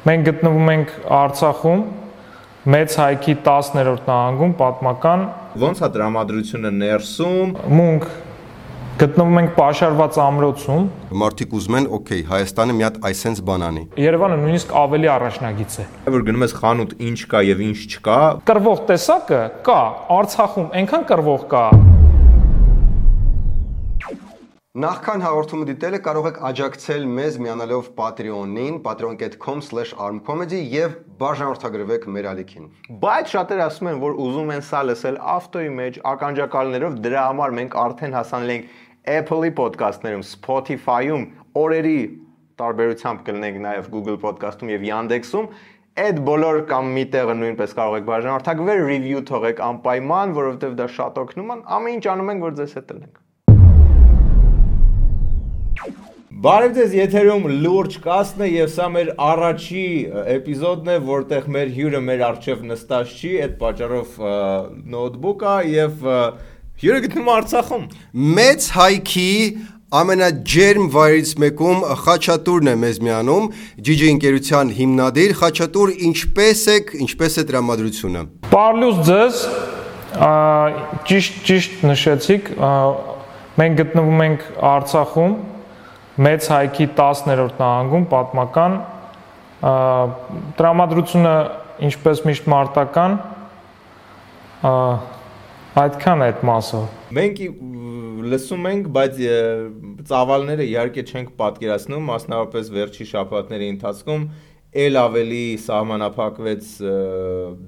Մենք գտնվում ենք Արցախում, մեծ հայքի 10-րդ նահանգում, պատմական։ Ոնց է տրամադրությունը ներսում։ Մունք գտնվում ենք պաշարված ամրոցում։ Մարդիկ ուզում են, օքեյ, Հայաստանը մի հատ այսենց բան անի։ Երևանը նույնիսկ ավելի առաջնագիծ է։ Որ գնում ես խանութ, ինչ կա եւ ինչ չկա։ Կռվող տեսակը կա, Արցախում այնքան կռվող կա։ Նախքան հաղորդումը դիտելը կարող եք աջակցել մեզ միանալով Patreon-ին, patreon.com/armcomedy եւ բաժանորդագրվեք մեր ալիքին։ Բայց շատերը ասում են, որ ուզում են սա լսել ավտոյի մեջ ականջակալներով, դրա համար մենք արդեն հասանել ենք Apple-ի ոդքասթներում, Spotify-ում, օրերի տարբերությամբ կլինենք նաեւ Google Podcast-ում եւ Yandex-ում։ Այդ բոլոր կամ մի տեղը նույնպես կարող եք բաժանորդագրվել, review թողեք անպայման, որովհետեւ դա շատ օգնում է։ Ամեն ինչ անում ենք, որ ձեզ հետ լինենք։ Բարև ձեզ, եթերում լուրջ կասն է եւ սա մեր առաջի էպիզոդն է, որտեղ մեր հյուրը մեր առջև նստած չի, այդ պատճառով նոթբուք է եւ հյուրը գտնվում է Արցախում։ Մեծ հայքի ամենաջերմ վայրից մեկում Խաչատուրն է մեզ միանում, GG ընկերության հիմնադիր։ Խաչատուր, ինչպես է տրամադրությունը։ Պարլուս ձեզ, ճիշտ նշեցիք, մենք գտնվում ենք Արցախում, մեծ հայքի 10-րդ նահանգում, պատմական, տրամադրությունը ինչպես միշտ մարտական, այդքան է այդ մասը։ Մենք լսում ենք, բայց ծավալները իհարկե չենք պատկերացնում, մասնավորապես վերջի շաբաթների ընթացքում ել ավելի սահմանափակվեց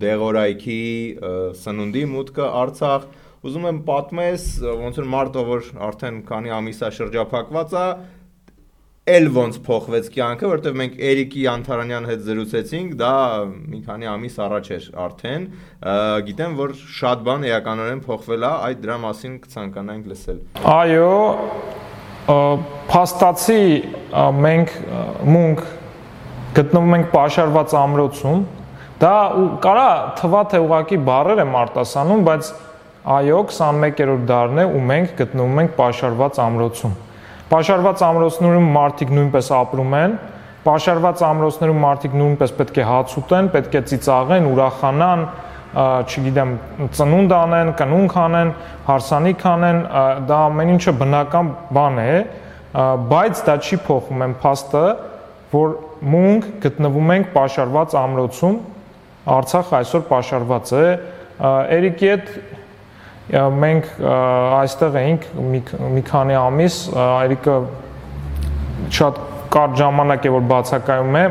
դեղորայքի սնունդի մուտքը Արցախ։ Ուզում եմ պատմես, ոնց որ մարտը, որ արդեն քանի ամիս է շրջափակված է, էլ ոնց փոխվեց կյանքը, որտեղ մենք Էրիկի Անթարանյան հետ զրուցեցինք, դա մի քանի ամիս առաջ էր արդեն, գիտեմ, որ շատ բան էականորեն փոխվել է, այդ դրա մասին կցանկանանք լսել։ Այո, փաստացի մենք մունք գտնվում ենք պաշարված ամրոցում, դա կարա թվա թե ուղակի բառեր եմ արտասանում, բայց այո, 21-րդ դարն է ու մենք գտնվում ենք պաշարված ամրոցում։ Պաշարված ամրոցներում մարդիկ նույնպես ապրում են, պաշարված ամրոցներում մարդիկ նույնպես պետք է հաց ուտեն, պետք է ծիծաղեն, ուրախանան, չգիտեմ, ծնունդ անեն, կնունք անեն, հարսանիք անեն, դա ամեն ինչը բնական բան է, բայց դա չի փոխում այն փաստը, որ մենք գտնվում ենք պաշարված ամրոցում, Արցախ այսօր պաշարված է, Էրիկի հետ մենք այստեղ էինք մի քանի ամիս, Էրիկը շատ կարճ ժամանակ է որ բացակայում է,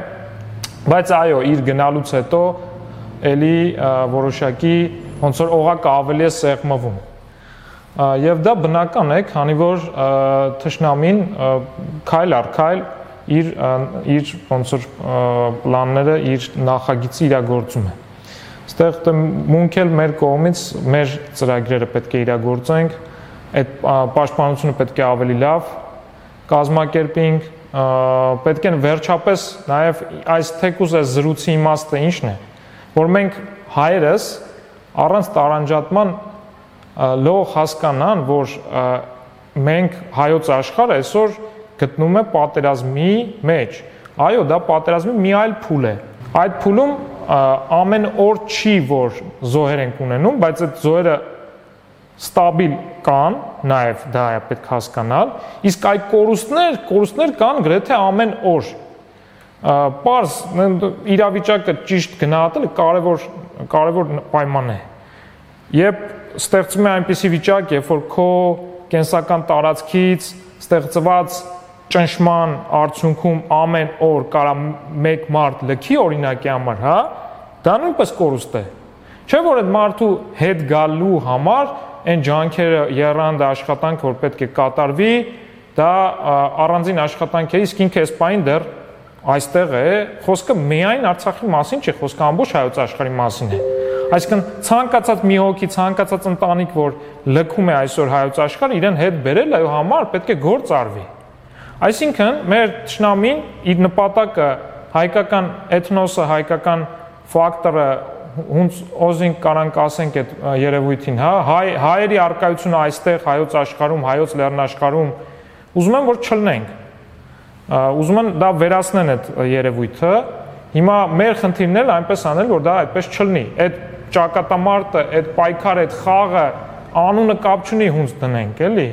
բայց այո, իր գնալուց հետո էլի որոշակի ոնց որ օղակը ավելի է սեղմվում։ Եվ դա բնական է, քանի որ թշնամին քայլ առ քայլ իր ոնց որ պլանները, իր նախագիծը իրագործում է։ Ստեղ մունք էլ մեր կողմից մեր ծրագրերը պետք է իրագործենք, այդ պաշտպանությունը պետք է ավելի լավ կազմակերպենք, պետք է վերջապես նաև այս թեկուզ այս զրույցի իմաստը ինչն է, որ մենք հայերս առանց տարանջատման լող հասկանան, որ մենք հայոց աշխարհը այսօր գտնվում է պատերազմի մեջ։ Այո, դա պատերազմի մի այլ փուլ է։ Այդ փուլում ամեն օր չի, որ զոհեր ենք ունենում, բայց այդ զոհերը ստաբիլ կան, նաև դա է պետք հասկանալ, իսկ այդ կորուստներ կան գրեթե ամեն օր։ Պարզ իրավիճակը ճիշտ գնահատելը կարևոր պայման է։ Երբ ստեղծում է այնպիսի վիճակ, երբ որ քո կենսական տարածքից ստեղծված ճնշման արդյունքում ամեն օր կարա մեկ մարդ լքի օրինակի համար, հա, դա նույնպես կորուստ է։ Չէ՞ որ այդ մարդու հետ գալու համար այն ջանքերը եռանդ աշխատանք, որ պետք է կատարվի, դա առանձին աշխատանք է, իսկ ինքը այս պայն դեռ այստեղ է, խոսքը միայն Արցախի մասին չի, խոսքը ամբողջ հայոց աշխարհի մասին է։ Այսինքն ցանկացած մի հոգի, ցանկացած ընտանիք, որ լքում է այսօր հայոց աշխարհը, իրեն հետ բերել այո համար պետք է գործ արվի։ Այսինքն մեր թշնամին իր նպատակը հայկական էթնոսը, հայկական ֆակտորը հունց օզին կարանք ասենք այդ երևույթին, հա, հայերի արկայությունը այստեղ հայոց աշխարհում, հայոց լեռնաշխարհում ուզում են որ չլնենք։ Ուզում են դա վերացնեն այդ երևույթը Հիմա մեր խնդիրն էլ այնպես անել, որ դա այդպես չլինի։ Այդ ճակատամարտը, այդ պայքարը, այդ խաղը անունը կապ չունի հունց դնենք, էլի։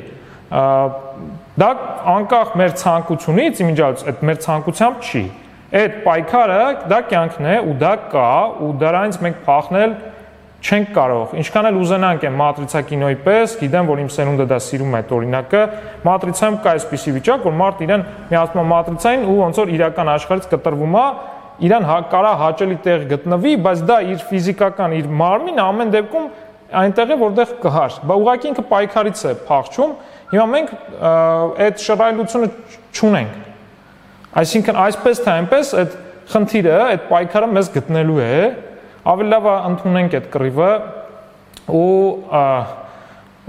Դա անկախ մեր ցանկությունից, իմիջիայից այդ մեր ցանկությամբ չի։ Այդ պայքարը դա կյանքն է ու դա կա ու դրանից մենք փախնել չենք կարող։ Ինչքան էլ ուզենանք այն մատրիցա կինոյի պես, գիտեմ, որ իմ սերունդը դա սիրում է այդ օրինակը, մատրիցայում կա այսպիսի վիճակ, որ մարդ իրեն միացնում է մատրիցային ու ոնց որ իրական աշխարհից կտրվում է, իրան կարա հաճելի տեղ գտնվի, բայց դա իր ֆիզիկական, իր մարմինը ամեն դեպքում այնտեղ է, որտեղ կհար։ Բա ուղղակի ինքը պայքարից է փախչում։ Հիմա մենք այդ շռայլությունը չունենք։ Այսինքն այսպես թե այնպես այդ խնդիրը, այդ պայքարը մեզ գտնելու է, ավելի լավ ընդունենք այդ կռիվը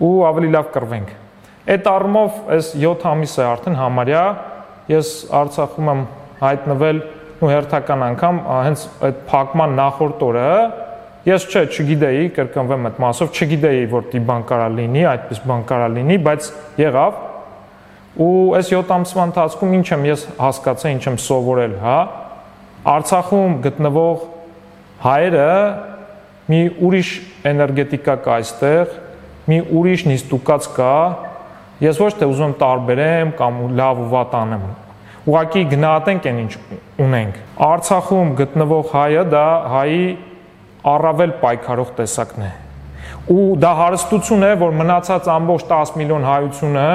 ու ավելի լավ կռվենք։ Այդ առումով այս 7 ամիս է արդեն համարյա ես Արցախում եմ հայտնվել ու հերթական անգամ հենց այդ փակման նախորդ օրը ես չգիտեի, կրկնվեմ այդ մասով, չգիտեի, որ դի բան կարա լինի, այդպես բան կարա լինի, բայց եղավ։ Ու այս 7 ամսվա ընթացքում ինչ եմ ես հասկացել, ինչ եմ սովորել, հա։ Արցախում գտնվող հայերը մի ուրիշ էներգետիկա կա այստեղ, մի ուրիշ նիստուկած կա։ Ես ոչ թե ուզում եմ տարբերեմ կամ լավ ու վատ անեմ։ Ուղղակի գնահատենք այն ինչ ունենք։ Արցախում գտնվող հայը դա հայի առավել պայքարող տեսակն է։ Ու դա հարստություն է, որ մնացած ամբողջ 10 միլիոն հայությունը,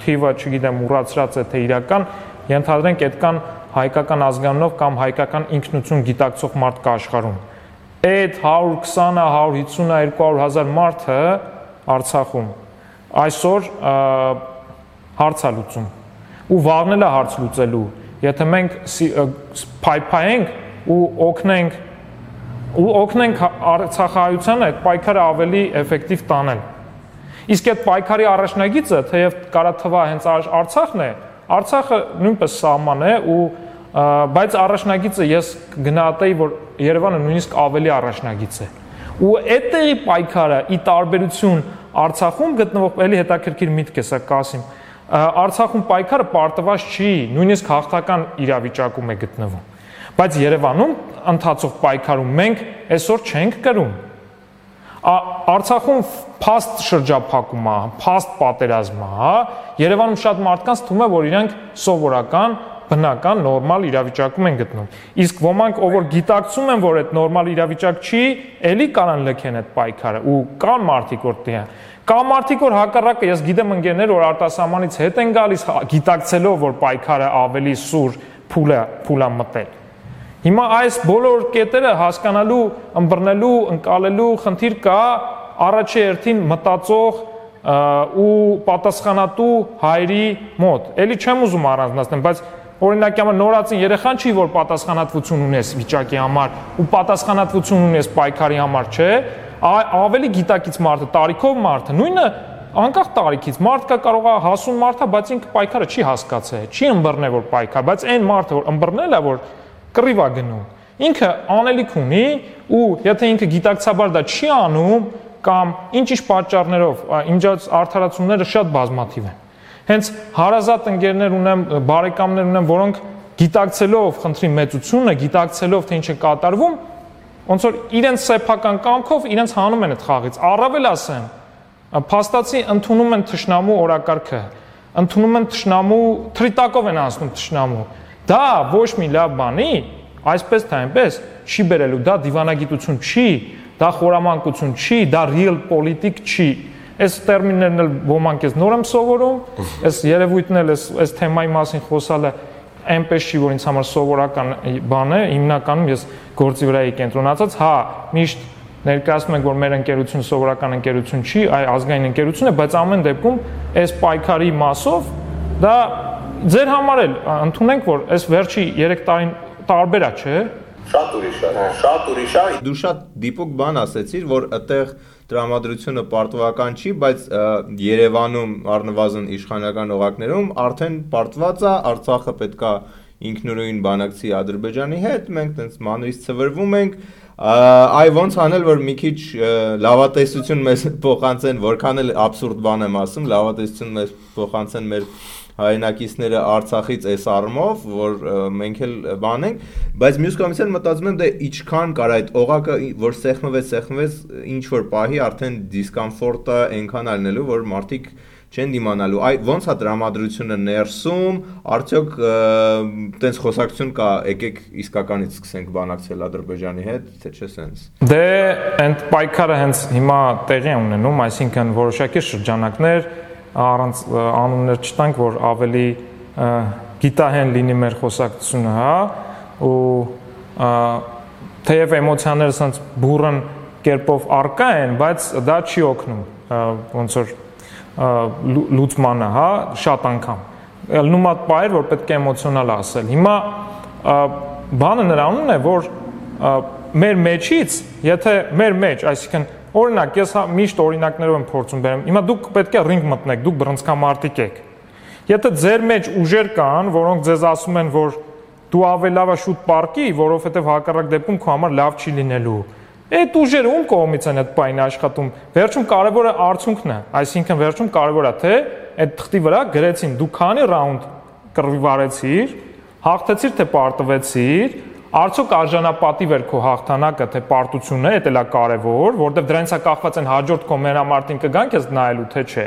թիվը, չգիտեմ, ուրացրած է թե իրական, ենթադրենք այդքան հայկական ազգանունով կամ հայկական ինքնություն գիտակցող մարդ կա աշխարհում։ Այդ 120-ը, 150-ը, 200,000 մարդը Արցախում այսօր հարց է լուծում։ Ու վաղն է հարց լուծելու, եթե մենք փայփայենք ու օգնենք Արցախահայությանը այդ պայքարը ավելի էֆեկտիվ տանել։ Իսկ այդ պայքարի առաջնագիծը, թեև կարա թվա հենց Արցախն է, Արցախը նույնպես սահման է ու բայց առաջնագիծը ես գնահատեի, որ Երևանը նույնիսկ ավելի առաջնագիծ է։ Ու այդտեղի պայքարը ի տարբերություն Արցախում գտնվող էլի հետաքրքիր միտք է սա Կասիմ։ Արցախում պայքարը պարտված չի, նույնիսկ հաղթական իրավիճակում է գտնվում։ Բայց Երևանում ընթացող պայքարում մենք այսօր չենք կրում։ Արցախում փաստ շրջափակում է, փաստ պատերազմ է, հա։ Երևանում շատ մարդկանց թվում է, որ իրենք սովորական, բնական, նորմալ իրավիճակում են գտնում։ Իսկ ոմանք, ով որ գիտակցում են, որ այդ նորմալ իրավիճակ չի, էլի կարան լքեն այդ պայքարը ու կան մարդիկ որ տեղ։ Կա մարդիկ որ հակառակը, ես գիտեմ ընկերներ, որ արտասահմանից հետ են գալիս, գիտակցելով, որ պայքարը ավելի սուր փուլ է մտել։ Հիմա այս բոլոր կետերը հասկանալու, ըմբռնելու, ընկալելու խնդիր կա առաջի հերթին մտածող ու պատասխանատու հայրի մոտ։ Էլի չեմ ուզում առանձնացնել, բայց օրինակ համար նորածին երեխան չի, որ պատասխանատվություն ունես վիճակի համար ու պատասխանատվություն ունես պայքարի համար, չէ, ավելի գիտակից մարդը, տարիքով մարդը, նույնը անկախ տարիքից մարդը կարող է հասուն մարդը, բայց ինքը պայքարը չի հասկացել, չի ըմբռնել որ պայքար, բայց այն մարդը որ ըմբռնել է որ կռիվ է գնում, ինքը անելիք ունի ու եթե ինքը գիտակցաբար դա չի անում կամ ինչ-ինչ պատճառներով, իմիջիայից արդարացումները շատ բազմաթիվ են։ Հենց հարազատ ընկերներ ունեմ, բարեկամներ ունեմ, որոնք գիտակցելով խնդրի մեծությունը, գիտակցելով թե ինչ է կատարվում, ոնց որ իրենց սեփական կամքով իրենց հանում են այդ խաղից։ Առավել ասեմ, փաստացի ընդունում են թշնամու օրակարգը, ընդունում են թշնամու թրիտակով են անցնում թշնամու։ Դա ոչ մի լավ բանի, այսպես թե այնպես չի բերելու, դա դիվանագիտություն չի, դա խորամանկություն չի, դա real politic չի։ Այս տերմիններն էլ ոմանք ես նոր եմ սովորում, այս երևույթն էլ այս թեմայի մասին խոսալը այնպես չի, որ ինձ համար սովորական բան է, հիմնականում ես գործի վրա եմ կենտրոնացած, հա, միշտ ներկայացնում ենք, որ մեր ընկերությունը սովորական ընկերություն չի, այ ազգային ընկերություն է, բայց ամեն դեպքում այս պայքարի մասով դա ձեր համար էլ ընդունենք, որ այս վերջի 3 տարին տարբեր է, չէ՞։ Շատ ուրիշ է։ Դու շատ դիպուկ բան ասեցիր, որ այդտեղ տրամադրությունը պարտվական չի, բայց Երևանում առնվազն իշխանական օղակներում արդեն պարտված է, Արցախը պետքա ինքնուրույն բանակցի Ադրբեջանի հետ, մենք տենց մանրից ցվրվում ենք, այ ոնց անել, որ մի քիչ լավատեսություն մեզ փոխանցեն, որքան էլ աբսուրդ բան եմ ասում, լավատեսություն մեզ փոխանցեն մեր հայրենակիցները Արցախից այս առումով, որ մենք էլ բանենք, բայց մյուս կողմից էլ մտածում եմ դե ինչքան կար այդ օղակը, որ սեղմվեց, ինչ որ պահի արդեն դիսկոմֆորտը այնքան ալնելու, որ մարդիկ չեն դիմանալու։ Այ ոնց է տրամադրությունը ներսում, արդյոք տենց խոսակցություն կա, եկեք իսկականից սկսենք բանակցել Ադրբեջանի հետ, թե չէ սենց։ Դե այդ պայքարը հենց հիմա տեղի է ունենում, այսինքն որոշակի շրջանակներ առանց անուններ չտանք, որ ավելի գիտահեն լինի մեր խոսակցությունը, հա, ու թեև էմոցիաները սենց բուրըն կերպով առկա են, բայց դա չի օգնում, ոնց որ լուծմանը, հա, շատ անգամ։ Ելնում է պայր, որ պետք է էմոցիոնալ ասել։ Հիմա բանը նրանում է, որ մեր մեջից, եթե մեր մեջ, այսինքն օրինակ, ես միշտ օրինակներով եմ փորձում բերեմ։ Հիմա դուք պետք է ռինգ մտնեք, դուք բռնցքամարտիկ եք։ Եթե ձեր մեջ ուժեր կան, որոնք ձեզ ասում են, որ դու ավելի լավ է շուտ պարկի, որովհետև հակառակ դեպքում քո համար լավ չի լինելու։ Այդ ուժերը ում կողմից են այդ պայնը աշխատում։ Վերջում կարևորը արդյունքն է, այսինքն վերջում կարևոր է թե այդ թղթի վրա գրեցին դու քանի ռաունդ կռվի վարեցիր, հաղթեցիր թե պարտվեցիր, արդյոք արժանապատիվ էր քո հաղթանակը թե պարտությունը, դա էլ է կարևոր, որովհետև դրանից է կախված են հաջորդ քո մենամարտին կգան քեզ նայելու թե չէ։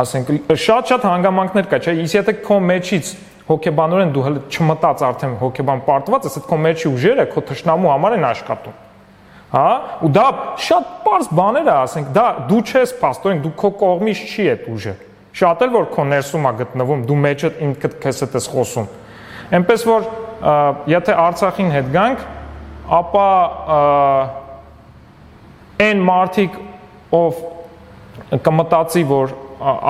Ասենք շատ հանգամանքներ կա, չէ՞, իսկ եթե քո մեջից հոգեբանորեն դու հələ չմտած արդեն հոգեբան պարտված ես, այդ քո մեջի ուժերը քո թշնամու համար են աշխատում։ Հա, ու դա շատ པարզ բաներ է, ասենք, դա դու չես փաստորեն, դու քո կողմից չի այդ ուժը։ Շատ էլ որ քո ներսում է գտնվում, դու մեջը ինքդ քեզ հետ ես խոսում։ Էնպես որ եթե Արցախին հետ գանք, ապա այն մարդիկ, ով կմտածի, որ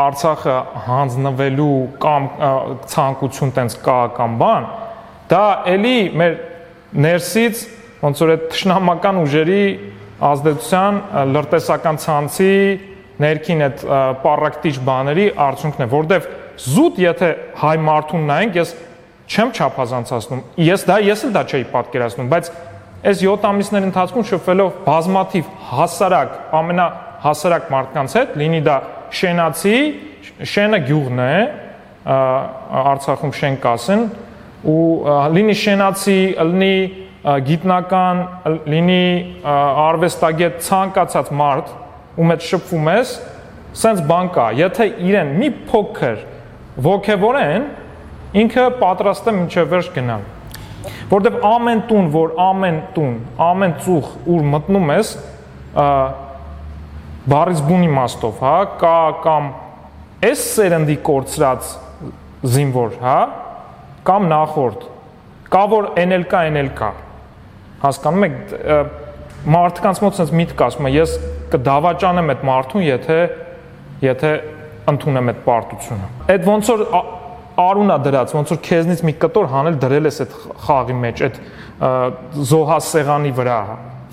Արցախը հանձնվելու կամ ցանկություն տենց կա կամ բան, դա էլի մեր ներսից ոնց որ այդ թշնամական ուժերի ազդեցության լրտեսական ցանցի ներքին այդ պարակտիչ բաների արդյունքն է, որովհետև զուտ եթե հայ մարդուն նայենք, ես չեմ չափազանցացնում, ես էլ դա չէի պատկերացնում, բայց այս 7 ամիսների ընթացքում շփվելով բազմաթիվ հասարակ, ամենահասարակ մարդկանց հետ, լինի դա շենացի, շենը գյուղն է, Արցախում շեն կասեն, ու լինի շենացի, լինի գիտնական, լինի արվեստագետ, ցանկացած մարդ, ում հետ շփվում ես, սենց բան կա, եթե իրեն մի փոքր ոգևորեն, ինքը պատրաստ է մինչև վերջ գնալ։ Որտեվ ամեն տուն, ամեն ծուխ, ուր մտնում ես, բառից բուն իմաստով, հա, կա կամ այս սերնդի կորցրած զինվոր, հա, կամ նախորդ, կա որ էնել կա, հասկանում եք, մարդկանց մոտ sense միտք ասում է, ես կդավաճանեմ այդ մարդուն, եթե ընդունեմ այդ պարտությունը։ Այդ ոնց որ արունա դրած, ոնց որ քեզնից մի կտոր հանել դրել ես այդ խաղի մեջ, այդ զոհասեղանի վրա,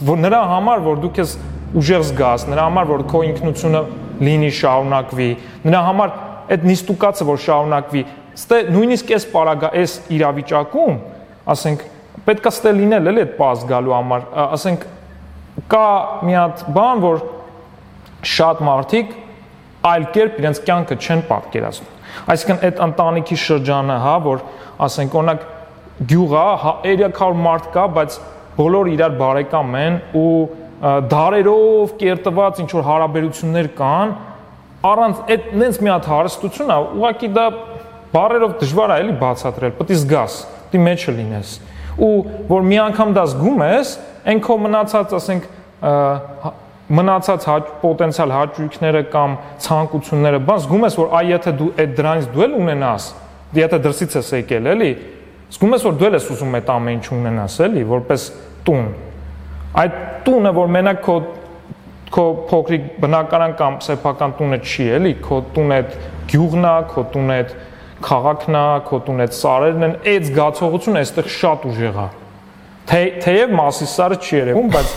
որ նրա համար, որ դու քեզ ուժեղ զգաս, նրա համար, որ քո ինքնությունը լինի, շարունակվի, նրա համար այդ նիստուկացը, որ շարունակվի, ստե նույնիսկ այս իրավիճակում, ասենք, պետք է ստե լինել էլի այդ պազ գալու համար, ասենք, կա մի հատ բան, որ շատ մարդիկ այլ կերպ իրենց կյանքը չեն պատկերացնում։ Այսինքն այդ ընտանիքի շրջանը, հա, որ ասենք օրինակ գյուղա 300 մարդ կա, բայց բոլորը իրար բարեկամ են ու դարերով կերտված ինչ որ հարաբերություններ կան, առանց այդ նենց մի հատ հարստություն է, ուղղակի դա բառերով դժվար է էլի բացատրել, պետք է զգաս, դի մեջը լինես։ Ու որ մի անգամ դա զգում ես, այն քո մնացած, ասենք, մնացած պոտենցիալ հաճույքները կամ ցանկությունները, բան զգում ես, որ այ եթե դու այդ դրանից դու էլ ունենաս, եթե դրսից ես եկել, էլի, զգում ես, որ դու էլ ես ուզում այդ ամեն ինչ ունենաս, էլի, որպես տուն։ Այդ տունը, որ մենակ քո փոքրիկ բնակարան կամ սեփական տունը չի, էլի, քո տունը այդ գյուղն է, քո տունը այդ քաղաքն է, քո տունը այդ սարերն են, այդ զգացողությունը այստեղ շատ ուժեղ է։ Թեև Մասիսարը չի երևում, բայց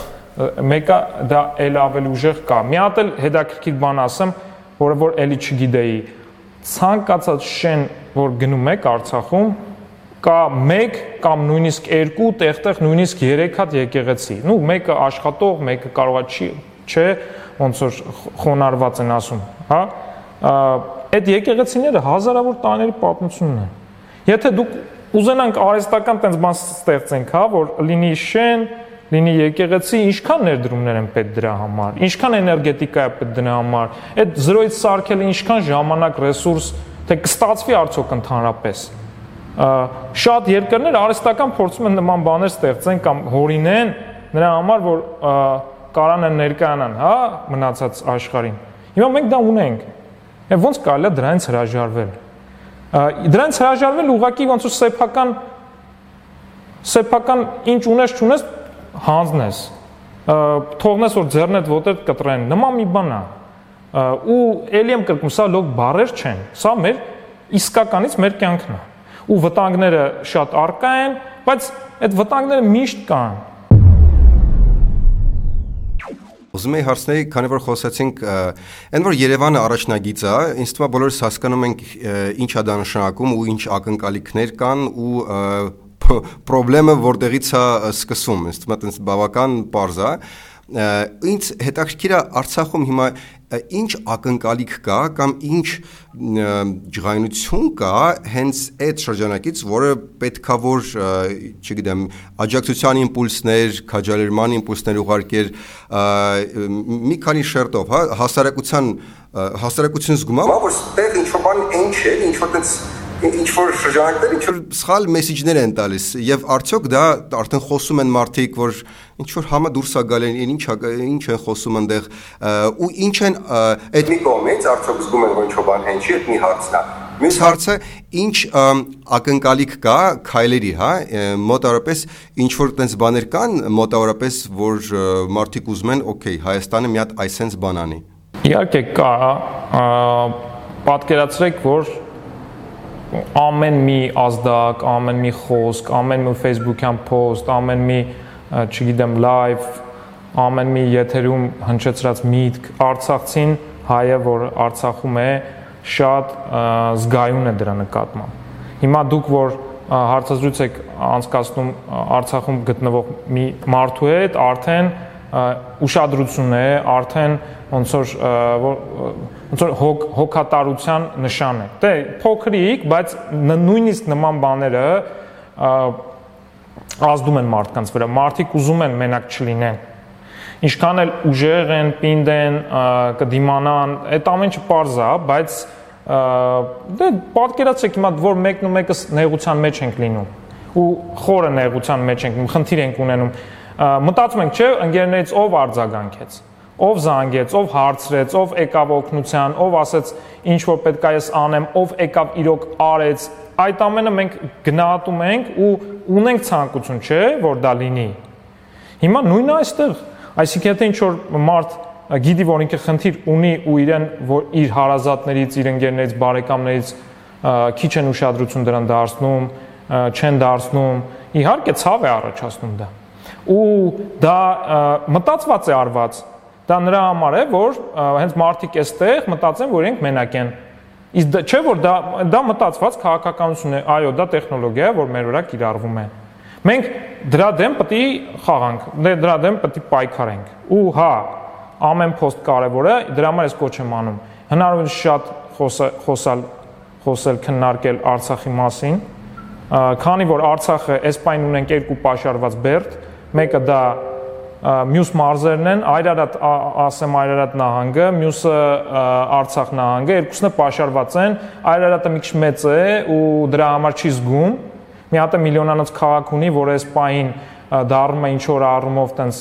մեկը դա էլ ավելի ուժեղ կա։ Մի հատ էլ հետաքրքիր բան ասեմ, որը որ էլի չգիտեի։ Ցանկացած շեն, որ գնում եք Արցախում, կա 1 կամ նույնիսկ 2, տեղ նույնիսկ 3 հատ եկեղեցի։ Նու մեկը աշխատող, մեկը կարող է չէ, ոնց որ խոնարհված են ասում, հա։ այդ եկեղեցիները հազարավոր տարիների պատմություն ունեն։ Եթե դուք ուզենանք արհեստական տենց բան ստեղծենք, հա, որ լինի շեն, լինի եկեղեցի, ինչքան ներդրումներ են պետք դրա համար, ինչքան էներգետիկա է պետք դրա համար, այդ 0-ից սարքելը ինչքան ժամանակ, ռեսուրս, թե կստացվի արդյոք ընդհանրապես։ Շատ երկրներ արհեստական փորձում են նման բաներ ստեղծեն կամ հորինեն նրա համար, որ կարան ներկայանան, հա, մնացած աշխարհին։ Հիմա մենք դա ունենք։ Եվ ոնց կարելի է դրանից հրաժարվել։ Դրանից հրաժարվել ուղղակի ոնց որ սեփական ինչ ունես չունես հանձնես, թողնես որ ձեռնդ ոտդ կտրեն, նման մի բան է։ Ու ելի եմ կրկնում, սա լոկ բառեր չեն, սա մեր իսկականից մեր կյանքն է։ Ու վտանգները շատ առկա են, բայց այդ վտանգները միշտ կան։ Ուզում եի հարցնել, քանի որ խոսացինք, այն որ Երևանը առաջնագիծ է, ինձ թվում է բոլորս հասկանում ենք ինչ է դա նշանակում ու ինչ ակնկալիքներ կան ու պրոբլեմը որտեղից է սկսում, ինձ թվում է այդպես բավական պարզ է։ Ինձ հետաքրքիր է Արցախում հիմա ինչ ակնկալիք կա կամ ինչ ջղայնություն կա հենց այդ շրջանակից, որը պետքա որ, չգիտեմ, աջակցության իմպուլսներ, քաջալերման իմպուլսներ ուղարկեր մի քանի շերտով, հա, հասարակություն զգում է, որ այդտեղ ինչ-որ բան այն չէ, ինչ-որ տենց ինչ-որ շրջանակներ ինչ-որ սխալ մեսիջներ են տալիս եւ արդյոք դա արդեն խոսում են մարդիկ, որ ինչ-որ համը դուրս է գալու, ինչ են խոսում այնտեղ ու ինչ են այդ մի կողմից արդյոք զգում են, որ ինչ-որ բան հեն չի, այդ մի հարցն է։ Մյուս հարցը ինչ ակնկալիք կա քայլերի, հա, մոտավորապես ինչ-որ տենց բաներ կան, մոտավորապես որ մարդիկ ուզում են, օքեյ, Հայաստանը մի հատ այսենց բան անի։ Իհարկե կա, պատկերացրեք, որ ամեն մի ազդակ, ամեն մի խոսք, ամեն մի Facebook-յան post, ամեն մի, չգիտեմ, live, ամեն մի եթերում հնչեցրած միտք, արցախցին հայը, որ Արցախում է, շատ զգայուն է դրա նկատմամբ։ Հիմա դուք որ հարցազրույց եք անցկացնում Արցախում գտնվող մի մարդու հետ, արդեն ուշադրություն է, արդեն ոնց որ հոգատարության նշան է։ Դե փոքրիկ, բայց նույնիսկ նման բաները ազդում են մարդկանց վրա։ Մարդիկ ուզում են մենակ չլինեն։ Ինչքան էլ ուժեղ են, պինդ են, կդիմանան, այդ ամենը պարզ է, բայց դե պատկերացրեք հիմա որ մեկն ու մեկը նեղության մեջ ենք լինում ու խորը նեղության մեջ ենք, խնդիր ենք ունենում։ Մտածում ենք, չէ, ընկերներից ով արձագանքեց, ով զանգեց, ով հարցրեց, ով եկավ օգնության, ով ասեց ինչ որ պետք է ես անեմ, ով եկավ իրոք արեց, այդ ամենը մենք գնահատում ենք ու ունենք ցանկություն, չէ, որ դա լինի։ Հիմա նույնն է այստեղ, այսինքն եթե ինչ որ մարդ գիտի, որ ինքը խնդիր ունի ու իրեն որ իր հարազատներից, իր ընկերներից, բարեկամներից քիչ են ուշադրություն դրան դարձնում, չեն դարձնում, իհարկե ցավ է առաջացնում դա։ Ու դա մտածված է արված։ Դա նրա համար է, որ հենց մարդիկ էստեղ մտածեն, որ իրենք մենակ են։ Իսկ չէ որ դա մտածված քաղաքականություն է, այո, դա տեխնոլոգիա է, որ մեր վրա կիրառվում է։ Մենք դրա դեմ պետք է խաղանք, դրա դեմ պետք է պայքարենք։ Ու հա, ամեն post կարևոր է, դրա համար ես կոչ եմ անում։ Հնարավորինս շատ խոսել, քննարկել Արցախի մասին, քանի որ Արցախը այս պայն ունենք երկու պաշարված բերդ, մեկը դա մյուս մարզերն են, Այրարատ նահանգը, մյուսը Արցախ նահանգը, երկուսն է պաշարված են, Այրարատը մի քիչ մեծ է ու դրա համար չի զգում։ Մի հատ է միլիոնանոց քաղաք ունի, որ այս պահին դառնում է ինչ որ առումով տենց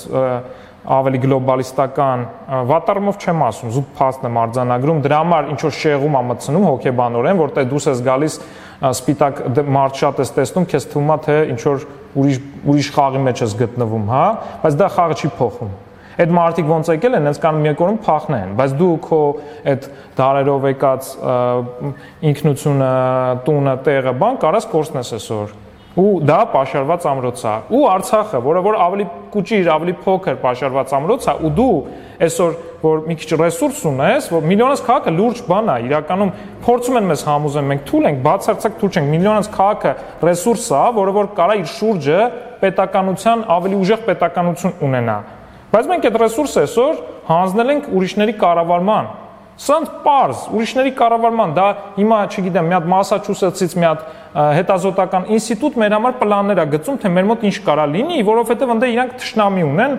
ավելի գլոբալիստական, վատ առումով չեմ ասում, զուտ փաստ եմ արձանագրում, դրա համար ինչ որ շեղում է մտցնում հոգեբանորեն, որտեղ դուս ես գալիս սպիտակ մարդ շատ ես տեսնում, քեզ թվում է թե ինչ որ ուրիշ խաղի մեջ ես գտնվում, հա, բայց դա խաղը չի փոխում։ Այդ մարդիկ ոնց եկել են, հենց կան մի երկորում փախնեն, բայց դու քո այդ դարերով եկած ինքնությունը, տունը, տեղը, բան կարաս կորցնես այսօր։ Ու դա պաշարված ամրոց է։ Ու Արցախը, որը որ ավելի կուճիր, ավելի փոքր պաշարված ամրոց է, ու դու այսօր որ մի քիչ ռեսուրս ունես, որ միլիոնից քաղաքը լուրջ բան է, իրականում փորձում են մեզ համոզեն, մենք թույլ ենք, բացարձակ թույլ չենք, միլիոնից քաղաքը ռեսուրս է, որը որ կարա իր շուրջը պետականության ավելի ուժեղ պետականություն ունենա։ Բայց մենք այդ ռեսուրսը այսօր հանձնել ենք ուրիշների կառավարման։ Սրանց պարզ, ուրիշների կառավարման, դա հիմա, չգիտեմ, մի հատ Մասաչուսեթսից մի հատ հետազոտական ինստիտուտ մեր համար պլաններ է գծում, թե մեր մոտ ինչ կարա լինի, որովհետև ընդ իրանք թշնամի ունեն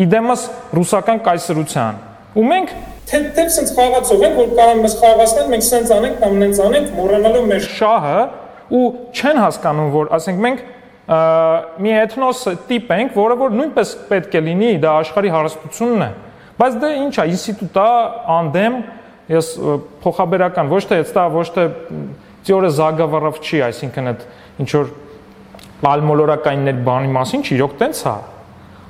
իդեմս ռուսական կայսրության։ Ու մենք թե սենց խաղացող ենք, որ կարող մեզ խաղացնել, մենք սենց անենք կամ նենց անենք, մոռանալով մեր շահը ու չեն հասկանում, որ ասենք մենք մի էթնոս տիպ ենք, որը որ նույնպես պետք է լինի, դա աշխարհի հարստությունն է։ Բայց դա ինչ է, ինստիտուտ է, անդեմ, ես փոխաբերական, ոչ թե теория заговоров չի, այսինքն այդ ինչ որ ալմոլորակայիններ բանի մասին չի, իրոք տենց է։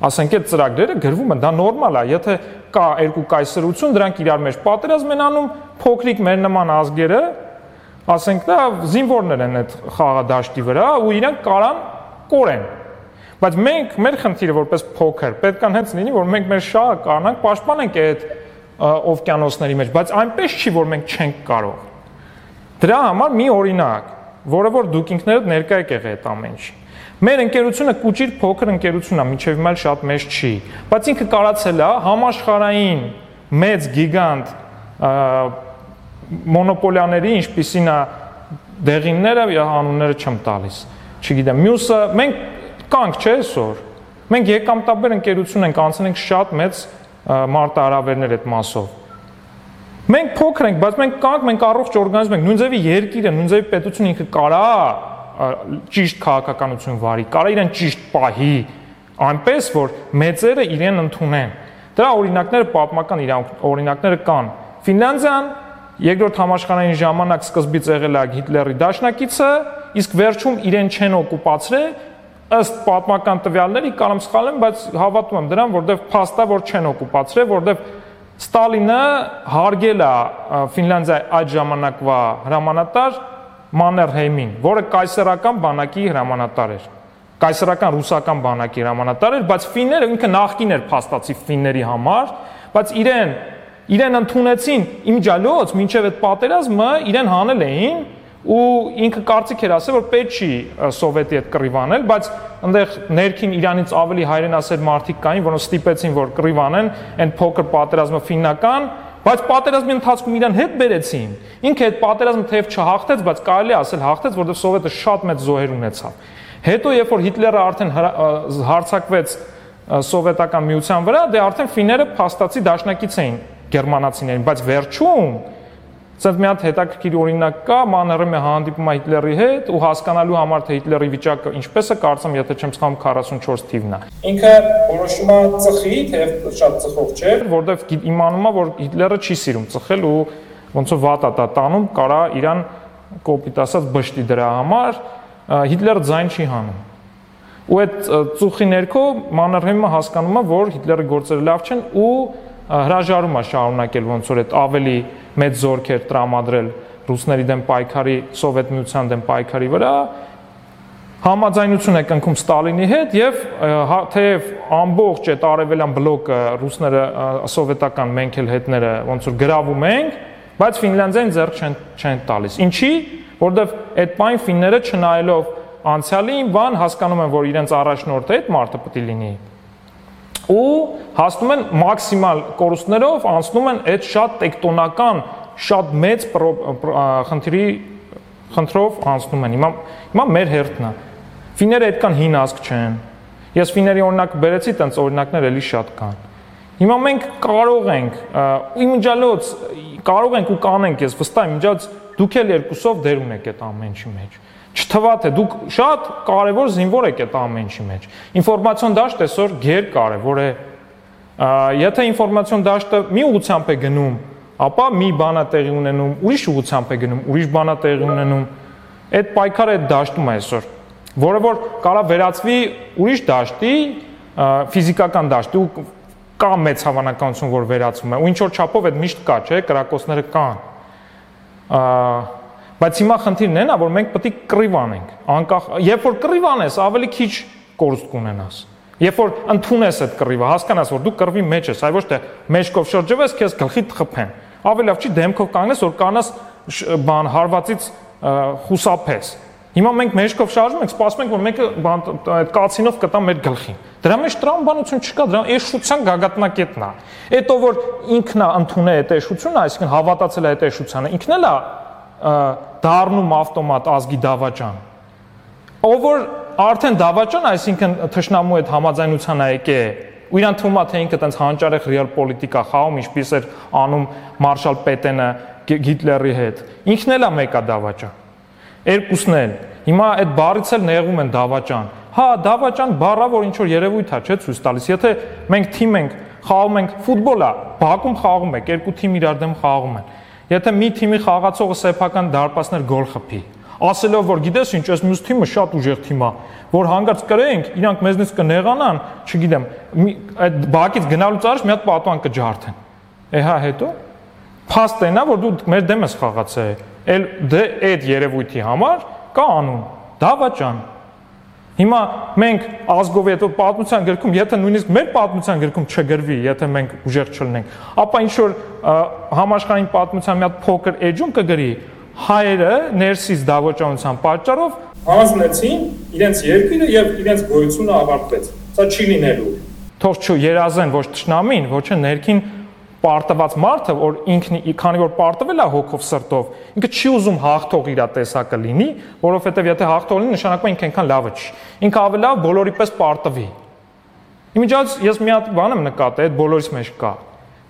Ասենք այդ ծրագրերը գրվում են, դա նորմալ է, եթե կա երկու կայսրություն, դրանք իրար մեջ պատերազմ են անում, փոքրիկ մեր նման ազգերը, ասենք դա զինվորներ են այդ խաղադաշտի վրա ու իրանք կարան կորեն։ Բայց մենք մեր խնդիրը որպես փոքր պետք է հենց լինի, որ մենք մեր շահը կարողանանք պաշտպանենք այդ օվկիանոսների մեջ, բայց այնպես չի, որ մենք չենք կարող։ Դրա համար մի օրինակ, որը որ դուք ինքներդ ներկա եք եղել այդ ամեն ինչի։ Մեր ընկերությունը կուճիր փոքր ընկերություն է, մինչև հիմա շատ մեծ չի, բայց ինքը կարացել է համաշխարհային մեծ գիգանտ մոնոպոլիաների, ինչպիսին է դեղինները, անունները չեմ տալիս։ Չգիտեմ, մյուսը մենք կանք չէ այսօր։ Մենք եկամտաբեր ընկերություն ենք, անցել ենք շատ մեծ մարտահրավերներ այդ մասով։ Մենք փոքր ենք, բայց մենք կանք, մենք առողջ օրգանիզմ ենք, նույն ձևի երկիրը, նույն ձևի պետությունը ինքը կարա ճիշտ քաղաքականություն վարի, կարա իրեն ճիշտ պահի, այնպես որ մեծերը իրեն ընդունեն։ Դրա օրինակները պատմական օրինակները կան։ Ֆինլանդիան Երկրորդ համաշխարհային ժամանակ սկզբից եղել է Հիտլերի դաշնակիցը, իսկ վերջում իրեն չեն օկուպացրել, ըստ պատմական տվյալների, կարող եմ սխալ եմ, բայց հավատում եմ դրան, որովհետև փաստա որ չեն օկուպացրել, որովհետև Ստալինը հարգել է Ֆինլանդիայի այդ ժամանակվա հրամանատար Մաններհեյմին, որը կայսերական բանակի հրամանատար էր։ Կայսերական ռուսական բանակի հրամանատար էր, բայց ֆինները ինքը նախկին էր փաստացի ֆինների համար, բայց իրեն ընդունեցին իմջալոց, մինչև այդ պատերազմը իրեն հանել էին ու ինքը կարծիք էր ասել, որ պետք չի սովետի հետ կռիվ անել, բայց այնտեղ ներքին Իրանից ավելի հայրենասեր մարդիկ կային, որոնք ստիպեցին, որ կռիվ անեն, այն փոքր պատերազմը ֆիննական, բայց պատերազմի ընթացքում իրան հետ բերեցին։ Ինքը այդ պատերազմը թեև չհաղթեց, բայց կարելի է ասել հաղթեց, որովհետև սովետը շատ մեծ զոհեր ունեցավ։ Հետո երբ որ Հիտլերը արդեն հարձակվեց սովետական միության վրա, դե արդեն ֆինները փաստացի դաշնակից էին գերմանացիներին, բայց վերջում Սենց մի հատ հետաքրքիր օրինակ կա, Մաններհեյմը հանդիպում է Հիտլերի հետ ու հասկանալու համար թե Հիտլերի վիճակը ինչպես է, կարծեմ, եթե չեմ սխալվում 44 թիվն է։ Ինքը որոշում է ծխի, թեև շատ ծխող չէ, որովհետև իմանում է, որ Հիտլերը չի սիրում ծխել ու ոնց որ վատ է տանում, կարա իրան կոպիտ ասած բշտի դրա համար, Հիտլերը ձայն չի հանում։ Ու այդ ծուխի ներքո Մաններհեյմը հասկանում է, որ Հիտլերի գործերը լավ չեն ու հրաժարում է շարունակել ոնց որ այդ ավելի մեծ զորքեր տրամադրել ռուսների դեմ պայքարի, սովետ միության դեմ պայքարի վրա, համաձայնություն է կնքում Ստալինի հետ եւ թեև ամբողջ այդ արևելյան բլոկը ռուսները սովետական մենք էլ հետները ոնց որ գրավում ենք, բայց Ֆինլանդիան ձեռք չեն տալիս։ Ինչի՞, որովհետեւ այդ պայն ֆինները չնայելով անցյալին, բան հասկանում են, որ իրենց առաջնորդը այդ մարդը պետք է լինի։ Ու հասնում են մաքսիմալ կորուստներով, անցնում են այդ շատ տեկտոնական, շատ մեծ խնդրով անցնում են։ Հիմա մեր հերթն է։ Ֆինները այդքան հին ազգ չեն։ Ես ֆիների օրինակ բերեցի, տենց օրինակներ էլի շատ կան։ Հիմա մենք կարող ենք, իմջալոց կարող ենք ու կանենք, ես վստահ եմ, իմջալոց դուք էլ երկուսով դեր ունեք այդ ամեն ինչի մեջ։ Չթվա թե դուք շատ կարևոր զինվոր եք այդ ամեն ինչի մեջ։ Ինֆորմացիոն դաշտ այսօր գերկարևոր է։ Եթե ինֆորմացիոն դաշտը մի ուղղությամբ է գնում, ապա մի բան է տեղի ունենում, ուրիշ ուղղությամբ է գնում, ուրիշ բան է տեղի ունենում։ Այդ պայքարը այդ դաշտում է այսօր, որը որ կարա վերածվի ուրիշ դաշտի, ֆիզիկական դաշտի ու կա մեծ հավանականություն, որ վերածվում է։ Ու ինչ որ չափով այդ միշտ կա, չէ, կրակոցները կան։ Բայց հիմա խնդիրն է նա, որ մենք պետք է կռիվ անենք, անկախ, երբ որ կռիվ անես, ավելի քիչ կորուստ կունենաս։ Երբ որ ընդունես այդ կռիվը, հասկանաս, որ դու կռվի մեջ ես, այ ոչ թե մեջքով շրջվես, քեզ գլխիդ խփեն։ Ավելի լավ չի դեմքով կանգնես, որ կանաս բան հարվածից խուսափես։ Հիմա մենք մեջքով շարժում ենք, սպասում ենք, որ մեկը այդ կացինով կտա մեր գլխին։ Դրա մեջ տրամաբանություն չկա, դրա էշության գագաթնակետն է։ Էտո որ ինքն է ընդունել այդ էշությունը, այսինքն հավատացել է այդ էշությանը, ինքն էլ է դառնում ավտոմատ ազգի դավաճան։ Ով որ արդեն դավաճան, այսինքն թշնամու այդ համաձայնության է եկել, ու իրան թվում է թե ինքը տենց հանճարեղ ռեալ պոլիտիկա խաղում, ինչպես էր անում Մարշալ Պետենը Հիտլերի հետ։ Ինքն էլ է մեկա դավաճան։ Երկուսն էլ։ Հիմա այդ բառից էլ նեղում են դավաճան։ Հա, դավաճան բառը որ ինչ որ երևույթ է, չէ՞, ցույց տալիս։ Եթե մենք թիմ ենք, խաղում ենք ֆուտբոլ է, բակում խաղում եք, երկու թիմ իրար դեմ խաղում են։ Եթե մի թիմի խաղացողը սեփական դարպասներ գոլ խփի, ասելով որ գիտես ինչ, այս մյուս թիմը շատ ուժեղ թիմ է, որ հանգարց կրենք, իրանք մեզնից կնեղանան, չգիտեմ, այդ բակից գնալուց առաջ մի հատ պատվան կջարդեն։ Հա հետո փաստ այնա որ դու մեր դեմ ես խաղացել, էլ դե այդ երևույթի համար կա անուն, դավաճան։ Հիմա մենք ազգով հետո պատմության գրքում, եթե նույնիսկ մեր պատմության գրքում չգրվի, եթե մենք ուժեղ չլինենք, ապա ինչ որ համաշխարհային պատմության մի հատ փոքր էջում կգրի, հայերը ներսից դավաճանության պատճառով հանձնեցին իրենց երկիրը եւ իրենց գոյությունը ավարտվեց։ Սա չի լինելու։ Թող չերազեն ոչ ճշնամին, ոչ ներքին պարտված մարդը, որ ինքն քանի որ պարտվել է հոգով սրտով, ինքը չի ուզում հաղթող իր տեսակը լինի, որովհետև եթե հաղթող լինի, նշանակում է ինքը այնքան լավը չի։ Ինքը ավելի լավ բոլորի պես պարտվի։ Իմիջիայից ես մի հատ բան եմ նկատել, այդ բոլորիս մեջ կա,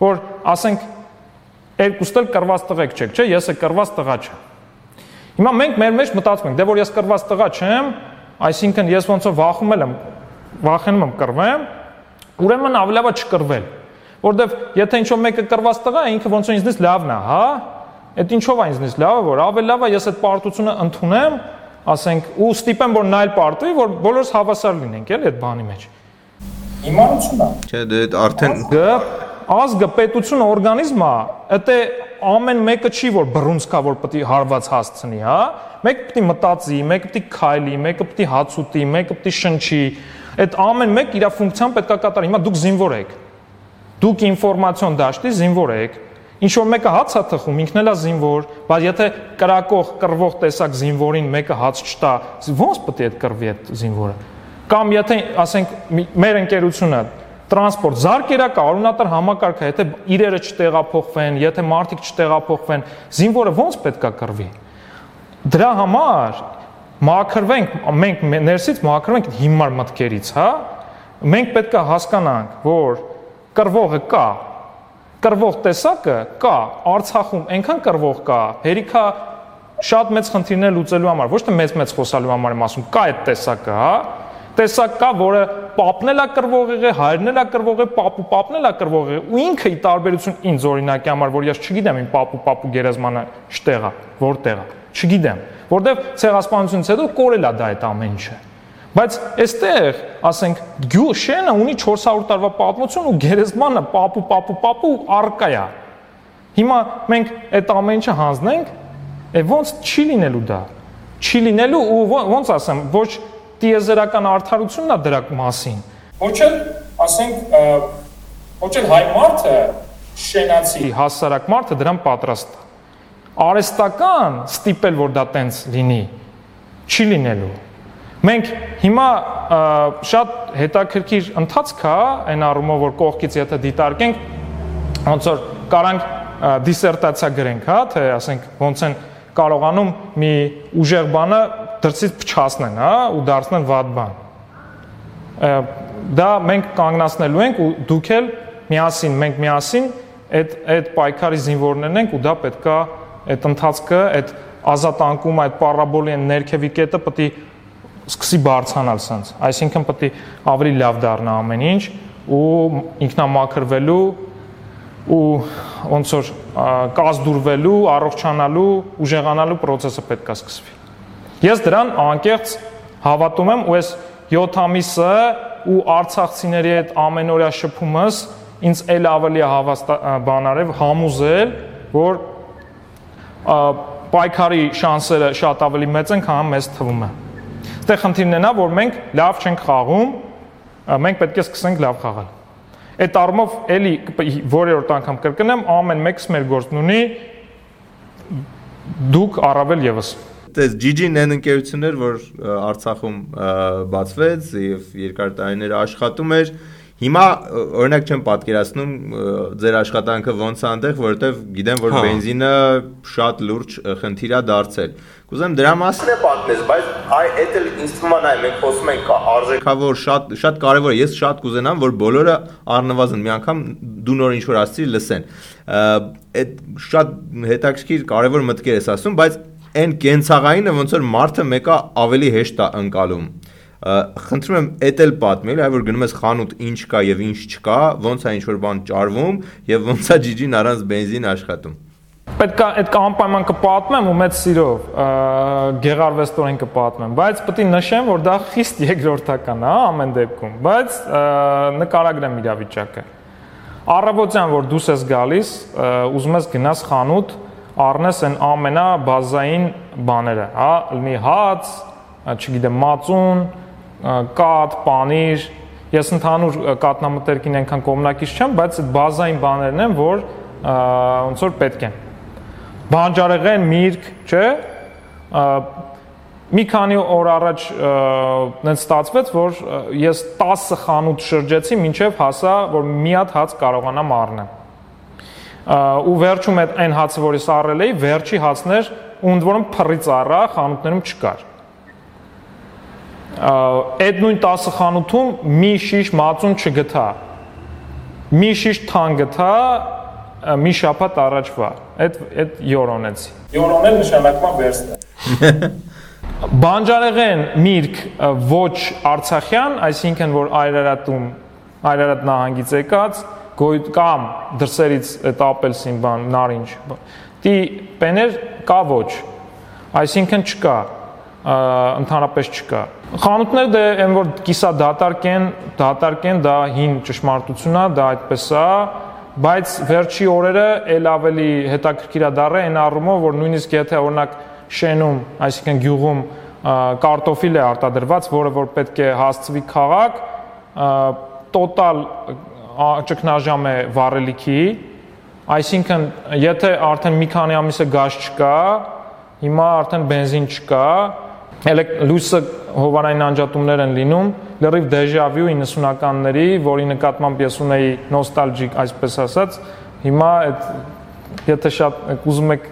որ ասենք երկուստ էլ կռված տղեկ չեք, չէ՞, ես է կռված տղա չեմ։ Հիմա մենք մեր մեջ մտածում ենք, դե որ ես կռված տղա չեմ, այսինքն ես ոնց որ վախենում եմ կռվեմ, ուրեմն ավելի լավ է չկռվել։ Որտեվ եթե ինչ-որ մեկը կռված տղա է, ինքը ոնց որ ինձնից լավն է, հա? Այդ ինչով է ինձնից լավը, որ ավելի լավ է ես այդ պարտությունը ընդունեմ, ասենք, ու ստիպեմ, որ նա էլ պարտվի, որ բոլորս հավասար լինենք, էլի այդ բանի մեջ։ Իմանությունն է։ Չէ, դե արդեն ազգը, պետությունը, օրգանիզմը, դա ամեն մեկը չի որ բռունցքա, որ պետք է հարված հասցնի, հա? Մեկը պետք է մտածի, մեկը պետք է քայլի, մեկը պետք է հաց ուտի, մեկը պետք է շնչի։ Այդ ամեն մեկ իր ֆունկցիան պետք է կատարի։ Հիմա դուք զինվոր եք։ Դուք ինֆորմացիոն դաշտի զինվոր եք։ Ինչ որ մեկը հաց է թխում, ինքն էլ է զինվոր, բայց եթե կրակող, կռվող տեսակ զինվորին մեկը հաց չտա, ո՞նց պետք է այդ կռվի այդ զինվորը։ Կամ եթե ասենք մեր ընկերությունը տրանսպորտ զարկերակա արունատար համակարգը, եթե իրերը չտեղափոխվեն, եթե մարդիկ չտեղափոխվեն, զինվորը ո՞նց պետք է կռվի։ Դրա համար մաքրվենք, մենք ներսից մաքրվենք հիմար մտքերից, հա։ Մենք պետք է հասկանանք, որ կռվողը կա, կռվող տեսակը կա, Արցախում այնքան կռվող կա, հերիքա շատ մեծ խնդիրներ լուծելու համար, ոչ թե մեծ խոսալու համար եմ ասում, կա այդ տեսակը, հա։ Տեսակ կա, որը պապն էլ է կռվող եղել, հայրն էլ է կռվող եղել, պապն էլ է կռվող եղել, ու ինքը ի տարբերություն ինձ օրինակի համար, որ ես չգիտեմ իմ պապու գերեզմանը շտեղ է, որտեղ է, չգիտեմ, որտեվ ցեղասպանությունից հետո կորել է դա այդ ամեն ինչը։ Բայց այստեղ, ասենք, Շենը ունի 400 տարվա պատմություն ու գերեզմանը պապու առկա է։ Հիմա մենք այդ ամեն ինչը հանձնենք, ոնց չի լինելու դա։ Չի լինելու ու ոնց ասեմ, ոչ տիեզերական արդարությունն է դրա մասին։ Ոչ էլ, ասենք, ոչ էլ հայ մարդը, շենացի հասարակ մարդը դրան պատրաստ է։ Արհեստական ստիպել, որ դա տենց լինի, չի լինելու։ Մենք հիմա շատ հետաքրքիր ընթացք է այն առումով, որ կողքից եթե դիտարկենք, ոնց որ կարանք դիսերտացիա գրենք, հա, թե ասենք ոնց են կարողանում մի ուժեղ բանը դրսից փչացնեն, հա, ու դարձնեն վատ բան։ Դա մենք կանգնացնելու ենք ու դուք էլ միասին, մենք միասին այդ պայքարի զինվորներն ենք ու դա պետքա այդ ընթացքը, այդ ազատանկումը, այդ պարաբոլի ներքևի կետը պետք է սկսի բարձրանալ սենց, այսինքն պետք է ավելի լավ դառնա ամեն ինչ ու ինքնամաքրվելու ու ոնց որ կազդուրվելու, առողջանալու, ուժեղանալու process-ը պետք է սկսվի։ Ես դրան անկեղծ հավատում եմ ու այս 7 ամիսը ու արցախցիների այդ ամենօրյա շփումս ինձ էլ ավելի բանարև համոզել, որ պայքարի շանսերը շատ ավելի մեծ են, քան մեզ թվում է։ Դե խնդիրն է նա, որ մենք լավ չենք խաղում, մենք պետք է սկսենք լավ խաղալ։ Այդ առումով էլի որերորդ անգամ կրկնեմ, ամեն մեկս մեր գործն ունի, դուք առավել եւս։ Դες GG-ն այն ընկերությունն էր, որ Արցախում բացվեց եւ երկար տարիներ աշխատում էր։ Հիմա օրինակ չեմ պատկերացնում ձեր աշխատանքը ոնց է այնտեղ, որովհետեւ գիտեմ, որ բենզինը շատ լուրջ խնդիր է դարձել։ Կուզեմ դրա մասին է պատմես, բայց այդ էլ ինձ թվում է մենք խոսում ենք արժեքավոր շատ կարևոր է։ Ես շատ կուզենամ, որ բոլորը առնվազն մի անգամ դու նոր ինչ որ ասցի լսեն։ Այդ շատ հետաքրքիր կարևոր մտքեր ես ասում, բայց այն կենցաղայինը ոնց որ մարդը մեկը ավելի հեշտ է ընկալում։ Խնդրում եմ էդ էլ պատմել, այ որ գնում ես խանութ ինչ կա եւ ինչ չկա, ոնց է ինչ որ բան ճարվում եւ ոնց է GG-ն առանց բենզին աշխատում։ Պետք է այդ անպայման կպատմեմ ու մեծ սիրով գեղարվեստորեն կպատմեմ, բայց պետք է նշեմ, որ դա խիստ երկրորդական է ամեն դեպքում, բայց նկարագրեմ իրավիճակը։ Առավոտյան որ դուրս ես գալիս, ուզում ես գնաս խանութ, առնես այն ամենաբազային բաները, հա, լինի հաց, չգիտեմ, մածուն, կաթ, պանիր, ես ընդհանուր կատնամտերքին այնքան կողմնակից չեմ, բայց այդ բազային բաներն են, որ ոնց որ պետք են։ Բանջարեղեն, միրգ, չէ՞։ Մի քանի օր առաջ նենց ստացվեց, որ ես 10 խանութ շրջեցի, մինչև հասա, որ մի հատ հաց կարողանամ առնեմ։ Ու վերջում այն հացը, որ ես առել էի, վերջի հացն էր, ու ընդ որում փռից առա, խանութներում չկար։ Այդ նույն 10 խանութում մի շիշ մածուն չգտա, մի շիշ թան գտա մի շաբաթ առաջվա, այդ յորոնեցի։ Յորոնել նշանակում է վերստը։ Բանջարեղեն միրգ ոչ արցախյան, այսինքն որ Այրարատ նահանգից եկած, կամ դրսերից այդ ապելսին բան, նարինջ, դի պեներ կա ոչ, այսինքն չկա, ընդհանրապես չկա։ Խանութները դե այն որ կիսա դատարկ են, դա հին ճշմարտություն է, դա այդպես է, բայց վերջի օրերը էլ ավելի հետաքրքիր է դառել այն առումով, որ նույնիսկ եթե օրինակ շենում, այսինքն գյուղում կարտոֆիլ է արտադրված, որը որ պետք է հասցվի քաղաք, տոտալ ճգնաժամ է վառելիքի, այսինքն եթե արդեն մի քանի ամիս է գազ չկա, հիմա արդեն բենզին չկա, լույսը հովանային անջատումներ են լինում, լրիվ դեժավյու 90-ականների, որի նկատմամբ ես ունեի նոստալջիկ, այսպես ասած, հիմա եթե շատ ուզում եք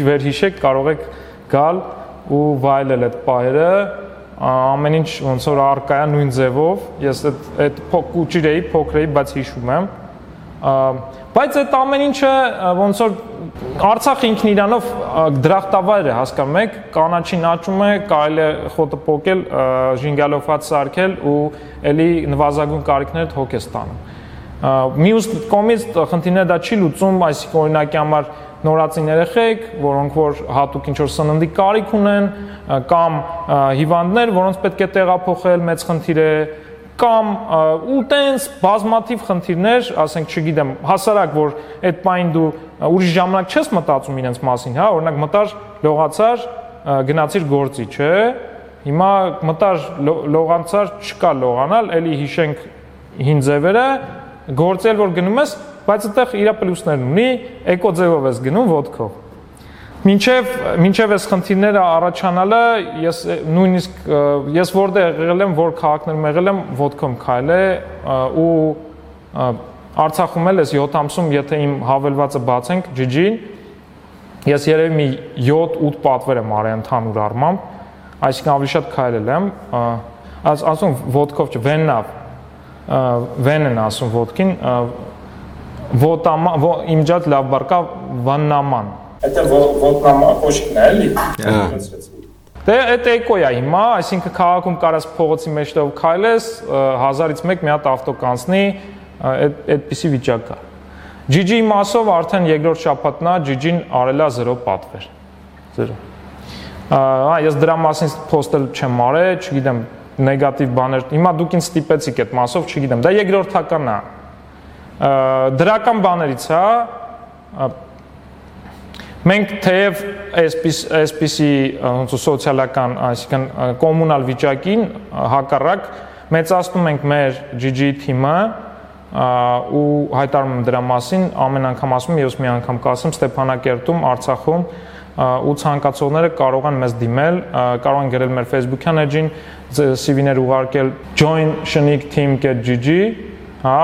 վերհիշեք, կարող եք գալ ու վայելել այդ պահերը, ամեն ինչ ոնց որ առկա է նույն ձևով, ես այդ փոքր էի, բայց հիշում եմ, բայց այդ ամեն ինչը ոնց որ Արցախը ինքն իրանով դրախտավայր է, հասկանում եք, կանաչին աճում է, կարելի է խոտը պոկել, ժինգալով հաց սարքել ու էլի նվազագույն կարիքներդ հոգ է ստանում։ Մյուս կողմից խնդիրները դա չի լուծում, այսինքն օրինակի համար նորածին երեխեք, որոնք որ հատուկ ինչ որ սննդի կարիք ունեն, կամ հիվանդներ, որոնց պետք է տեղափոխել, մեծ խնդիր է, կամ ու տենց բազմաթիվ խնդիրներ, ասենք, չգիտեմ, հասարակ որ այդ պայն դու ուրիշ ժամանակ չես մտածում իրենց մասին, հա, օրինակ մտար, լողացար, գնացիր գործի, չէ՞։ Հիմա մտար, լողացար, չկա լողանալ, էլի հիշենք հին ձևերը, գործել որ գնում ես, բայց այդտեղ իր պլյուսներն ունի, էկո ձևով ես գնում ոտքով։ Մինչև այս խնդիրները առաջանալը, ես որտեղ եղել եմ, որ քաղաքներում եղել եմ, ոտքով քայլել ու Արցախում էլ ես 7 ամսում, եթե իմ հավելվածը բացենք GG-ին, ես երևի մի 7-8 պատվեր եմ արել ընդհանուր առմամբ, այսինքն ավելի շատ քայլել եմ, ասում ոտքով չէ, վեն են ասում ոտքին, իմ ջատ լավ բառ կա վաննաման։ Это ոտնամակոշիկն է, էլի։ Դե այդ էկո է հիմա, այսինքն քաղաքում կարաս փողոցի մեջտեղով քայլես, 1000-ից 1 մի հատ ավտո կանցնի, այդպիսի վիճակ կա։ GG-ի մասով արդեն երկրորդ շաբաթն է, GG-ն արել է 0 պատվեր։ 0։ Ես դրա մասին post-ել չեմ արել, չգիտեմ, նեգատիվ բաներ։ Հիմա դուք ինձ ստիպեցիք այդ մասով, չգիտեմ, դա երկրորդական է։ Դրական բաներից է, մենք թեև այսպիսի սոցիալական, այսինքն կոմունալ վիճակին հակառակ մեծացնում ենք մեր GG թիմը ու հայտարարում եմ դրա մասին, ամեն անգամ ասում եմ, ես մի անգամ կասեմ Ստեփանակերտում, Արցախում ու ցանկացողները կարող են մեզ դիմել, կարող են գրել մեր Facebook-յան էջին, CV-ներ ուղարկել join.shnik.team.gg, հա,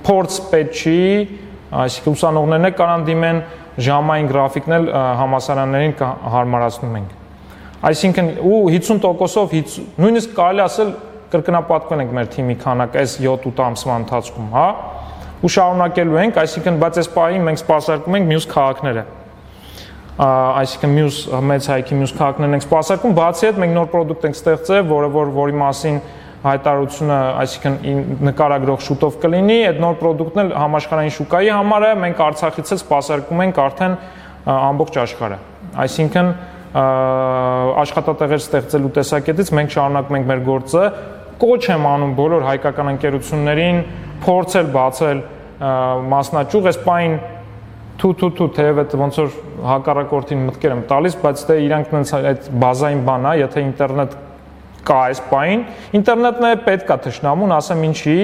փորձ պետք չի, այսինքն ուսանողներն էլ կարան դիմեն, ժամային գրաֆիկն էլ համալսարաններին հարմարացնում ենք։ Այսինքն ու 50%-ով նույնիսկ կարելի ասել կրկնապատկվել ենք մեր թիմի քանակը այս 7-8 ամսվա ընթացքում, հա, ու շարունակելու ենք, այսինքն բայց այս պահին մենք սպասարկում ենք մյուս քաղաքները։ Այսինքն մյուս մեծ հայքի մյուս քաղաքներն ենք սպասարկում, բացի այդ մենք նոր product ենք ստեղծել, որի մասին հայտարարությունը, այսինքն նկարագրող շուտով կլինի, այդ նոր product-ն էլ համաշխարհային շուկայի համար է, մենք Արցախից էլ սպասարկում ենք արդեն ամբողջ աշխարհը։ Այսինքն աշխատատեղեր ստեղծելու տեսակետից մենք շարունակում ենք մեր գործը, կոչ եմ անում բոլոր հայկական ընկերություններին փորձել բացել մասնաճյուղ, այս պայն թեև այդ ոնց որ հակառակորդին մտքեր եմ տալիս, բայց դե իրանք այդ բազային բան է, եթե ինտերնետ կա այս պայն, ինտերնետն է պետք է թշնամուն, ասեմ ինչի,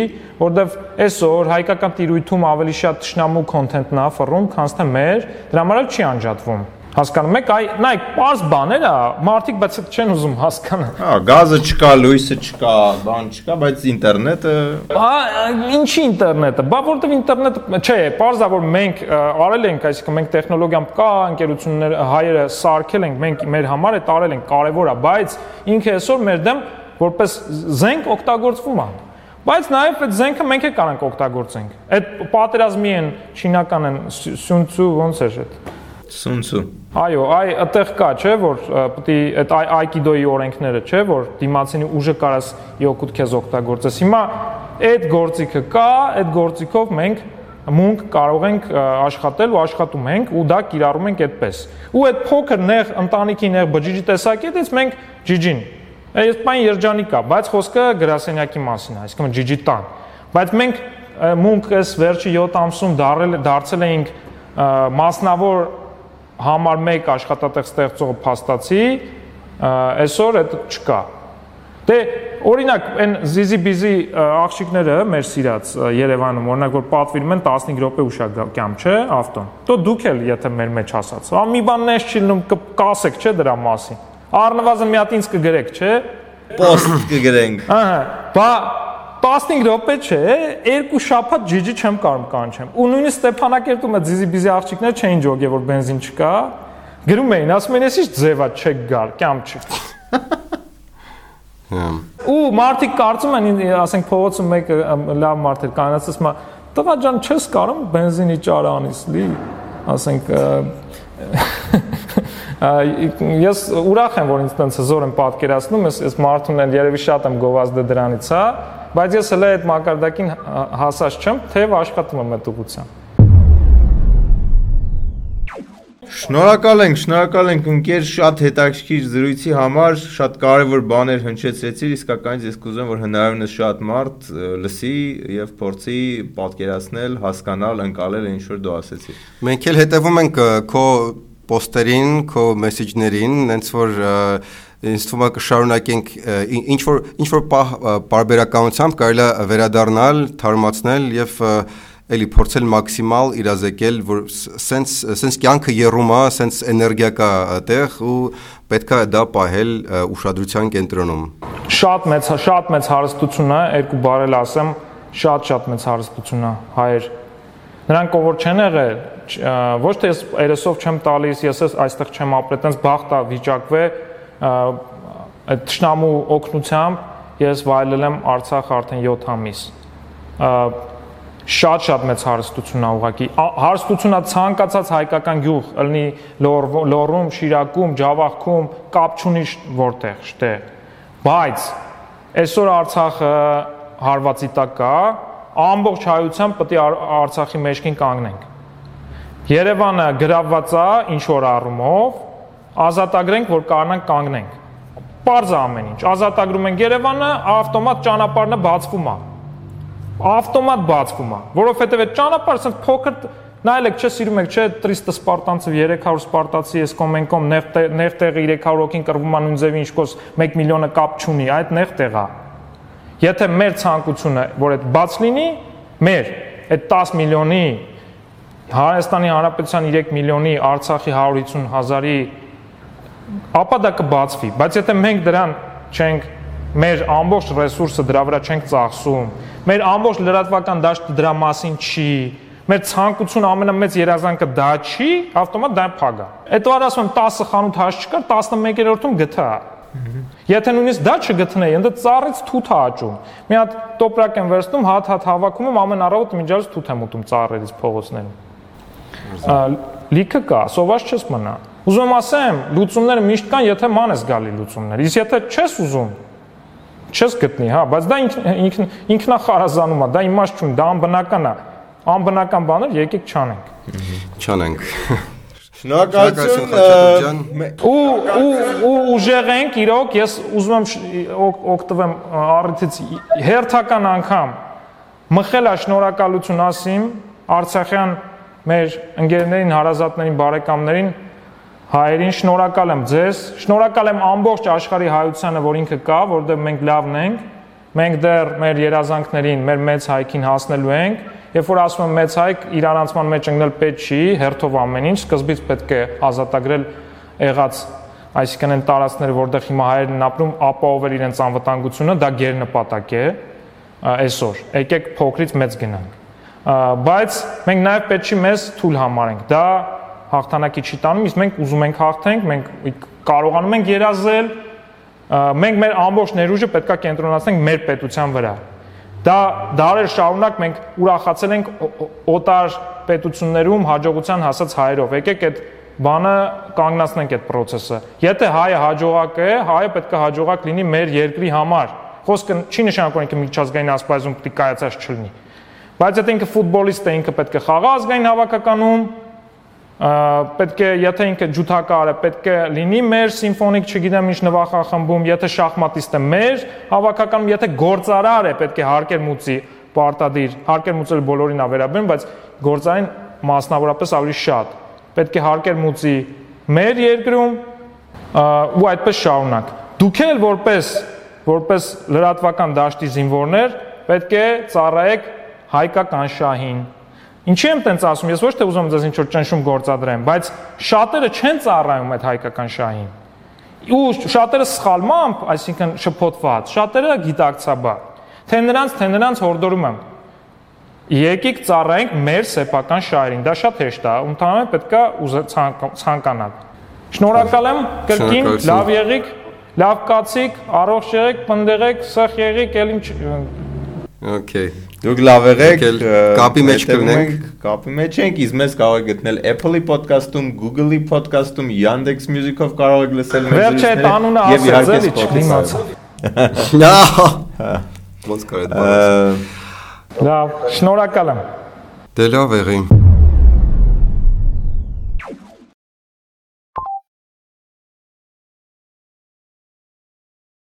որովհետև այսօր հայկական տիրույթում ավելի շատ թշնամու կոնտենտն է ֆռում, քան թե մեր, դրա համար էլ չի անջատվում։ Հասկանում եք, նայեք, պարզ բաներ է, մարդիկ բայց չեն ուզում հասկանալ։ Հա, գազը չկա, լույսը չկա, բան չկա, բայց ինտերնետը… Ինչի ինտերնետը։ Բա որտեվ ինտերնետը, չէ, պարզ է, որ մենք արել ենք, այսինքն մենք տեխնոլոգիան կա, ընկերություններ հայերը սարքել ենք, մենք մեր համար է տարել ենք, կարևոր է, բայց ինքը այսօր մեր դեմ որպես զենք օգտագործվում է։ Բայց նաև այդ զենքը մենք էլ կարանք օգտագործենք։ Այդ պատերազմի են չինական են Սյունցու ոնց է այդ Սունցու։ Այո, այդտեղ կա, չէ, որ պետք է այդ այկիդոյի օրենքները, չէ, որ դիմացինի ուժը կարաս իօգուտ քեզ օգտագործես։ Հիմա այդ գործիքը կա, այդ գործիքով մենք մունք կարող ենք աշխատել ու աշխատում ենք ու դա կիրառում ենք այդպես։ Ու այդ փոքր նեղ ընտանիքի նեղ բջիջի տեսակետից մենք ջիջին։ Այս բան երջանիկ է, բայց խոսքը գրասենյակի մասին է, այսինքն ջիջի տան։ Բայց մենք մունք այս վերջի 7 ամսում դարձել էինք մասնավոր համար 1 աշխատատեղ ստեղծող փաստացի, այսօր այդ չկա։ Դե օրինակ այն զիզի-բիզի աղջիկները մեր սիրած Երևանում, օրինակ որ պատվիրում են 15 րոպե ուշակամ, չէ, ավտոն։ Դո դուք էլ եթե մեր մեջ ասած։ Մի բան նես չի լինում կասեք, չէ, դրա մասին։ Առնվազն մի հատ ինձ կգրեք, չէ։ Post կգրենք։ Ահա, բա 15 րոպե չէ, 2 շաբաթ ջիջի չեմ կարող կանչեմ։ Ու նույնիսկ Ստեփանակերտում այդ զիզի-բիզի աղջիկները չէին ջոգե, որ բենզին չկա։ Գրում էին, ասում են, «Էս ի՞նչ ձև է, չեք գալ, կյամ չի»։ Ու մարդիկ կարծում են, ասենք փողոցում մեկը լավ մարդ էր կանացած, ասում է, «Տղա ջան, չես կարող բենզինի ճարը անես լի»։ Ասենք ես ուրախ եմ, որ ինձ տենց հզոր եմ պատկերացնում, ես մարդուն էլ երևի շատ եմ գովազդը դրանից, հա, բայց ես հələ այդ մակարդակին հասած չեմ, թեև աշխատում եմ այդ ուղղությամբ։ Շնորհակալ ենք ընկեր, շատ հետաքրքիր զրույցի համար, շատ կարևոր բաներ հնչեցրեցիր, իսկականից ես կուզեմ, որ հնարավորինս շատ մարդ լսի եւ փորձի պատկերացնել, հասկանալ, ընկալել ինչ որ դու ասեցիր։ Մենք էլ հետևում ենք քո post-երին, քո մեսեջներին, հենց որ ինձ թվում է կշարունակենք ինչ որ պարբերականությամբ կարելի է վերադառնալ, թարմացնել եւ էլի փորձել մաքսիմալ իրազեկել, որ սենց կյանքը երում է, սենց էներգիա կա այդտեղ ու պետք է դա պահել ուշադրության կենտրոնում։ Շատ մեծ հարստություն է, երկու բառել ասեմ, շատ մեծ հարստություն է հայեր։ Նրանք ով որ չեն եղել, ոչ թե ես երեսով չեմ տալիս, ես այստեղ չեմ ապրել, տենց բախտ է վիճակվե այդ թշնամու օգնությամբ ես վայելել եմ Արցախ արդեն 7 ամիս։ Շատ մեծ հարստություն է ուղղակի։ Հարստությունն է ցանկացած հայկական գյուղ, ըլնի Լոռում, Շիրակում, Ջավախքում, կապ չունի որտեղ, շտե։ Բայց այսօր Արցախը հարվածի տակ կա, ամբողջ հայությամբ պետք է Արցախի մեջքին կանգնենք։ Երևանը գրավված է ինչ որ առումով, ազատագրենք, որ կարողանանք կանգնենք։ Պարզ է ամեն ինչ։ Ազատագրում ենք Երևանը, ավտոմատ ճանապարհը բացվում է։ Ավտոմատ բացվում է, որովհետև այդ ճանապարհը ասենք փոքր նայեք, չէ, սիրում եք, չէ, 300 սպարտանցів, 300 սպարտացի, ես կոմենկոմ նեղ տեղը 300 հոգին կռվում է նույն ձևի ինչքոս 1 միլիոնը կապ չունի, այդ նեղ տեղ է։ Եթե մեր ցանկությունը, որ այդ բաց լինի, մեր այդ 10 միլիոնի Հայաստանի Հանրապետության 3 միլիոնի, Արցախի 150,000-ի, ապա դա կբացվի, բայց եթե մենք դրան չենք մեր ամբողջ ռեսուրսը դրա վրա չենք ծախսում, մեր ամբողջ լրատվական դաշտը դրա մասին չի, մեր ցանկությունը ամենամեծ երազանքը դա չի, ավտոմատ դա փագա։ Այդ վար ասում եմ 10 խանութ հաշ չկար, 11-րդում գտա։ Եթե նույնիսկ դա չգտնեի, ընդ ծառից թութ է աճում։ Մի հատ տոպրակ եմ վերցնում, հատ հավաքում եմ, ամեն առավոտ միջազգ թութ եմ ուտում ծառերից փողոցներում։ Լիքը կա, սոված չես մնա։ Ուզում եմ ասեմ, լուծումները միշտ կան, եթե ման ես գալի լուծումներ։ Իսկ եթե չես ուզում, չես գտնի, հա, բայց դա ինքնախարազանում է, դա իմաստ չունի, դա անբնական է։ Անբնական բաներ եկեք չանենք։ Չանենք։ Շնորհակալություն։ Ու ուժեղ ենք, իրոք, ես ուզում եմ օգտվեմ առիթից հերթական անգամ մխել է շնորհակալություն ասիմ Արցախյան մեր ընկերներին, հարազատներին, բարեկամներին, հայերին շնորհակալ եմ ձեզ, շնորհակալ եմ ամբողջ աշխարհի հայությանը, որ ինքը կա, որտեղ մենք լավն ենք, մենք դեռ մեր երազանքներին, մեր մեծ հայքին հասնելու ենք, երբ որ ասում եմ մեծ հայք, իրանացման մեջ ընկնել պետք չի, հերթով ամեն ինչ, սկզբից պետք է ազատագրել եղած, այսինքն այն տարածքները, որտեղ հիմա հայերն են ապրում, ապահովել իրենց անվտանգությունը, դա գերնպատակ է այսօր։ Եկեք փոքրից մեծ գնանք։ Բայց մենք նաև պետք չի մեզ թույլ համարենք։ Դա հաղթանակի չի տանում, իսկ մենք ուզում ենք հաղթենք, մենք կարողանում ենք երազել, մենք մեր ամբողջ ներուժը պետքա կենտրոնացնենք մեր պետության վրա։ Դա դարեր շարունակ մենք ուրախացել ենք օտար պետություններում հաջողության հասած հայերով։ Եկեք այդ բանը կանգնացնենք այդ process-ը։ Եթե հայը հաջողակ է, հայը պետքա հաջողակ լինի մեր երկրի համար։ Խոսքը չի նշանակում ինքը միջազգային ասպարեզում պետք է կայացած չլինի։ Բայց եթե ինքը ֆուտբոլիստ է, ինքը պետք է խաղա ազգային հավաքականում, պետք է, եթե ինքը ջութակար է, պետք է լինի մեր սիմֆոնիկ, չգիտեմ ինչ նվախախմբում, եթե շախմատիստ է մեր հավաքականում, եթե գործարար է, պետք է հարկեր մուծի պարտադիր, հարկեր մուծել բոլորին է վերաբերում, բայց գործարին մասնավորապես ավելի շատ։ Պետք է հարկեր մուծի մեր երկրում ու այդպես շարունակ։ Դուք էլ որպես լրատվական դաշտի զինվորներ պետք է ծառայեք հայկական շահին։ Ինչի եմ տենց ասում, ես ոչ թե ուզում եմ ձեզ ինչ-որ ճնշում գործադրեմ, բայց շատերը չեն ծառայում այդ հայկական շահին։ Ու շատերը սխալմամբ, այսինքն շփոթված, շատերը գիտակցաբար։ Թե նրանց հորդորում եմ։ Եկեք ծառայենք մեր սեփական շահերին։ Դա շատ հեշտ է, ընդհանրապես պետքա ցանկանալ։ Շնորհակալ եմ, կրկին, լավ եղիք, լավ կացիք, առողջ եղեք, պնդեղեք, սխ եղիք, ել ինչ Okay. Դուք լավ եղեք, կապի մեջ կլինենք, կապի մեջ ենք, իսկ մեզ կարող եք գտնել Apple-ի podcast-ում, Google-ի podcast-ում, Yandex Music-ով կարող եք լսել մեր զրույցները։ Վերջ այդ անունը ասած էլի չդիմացա։ Ոնց կարելի է։ Լավ, շնորհակալ եմ։ Դե լավ եղի։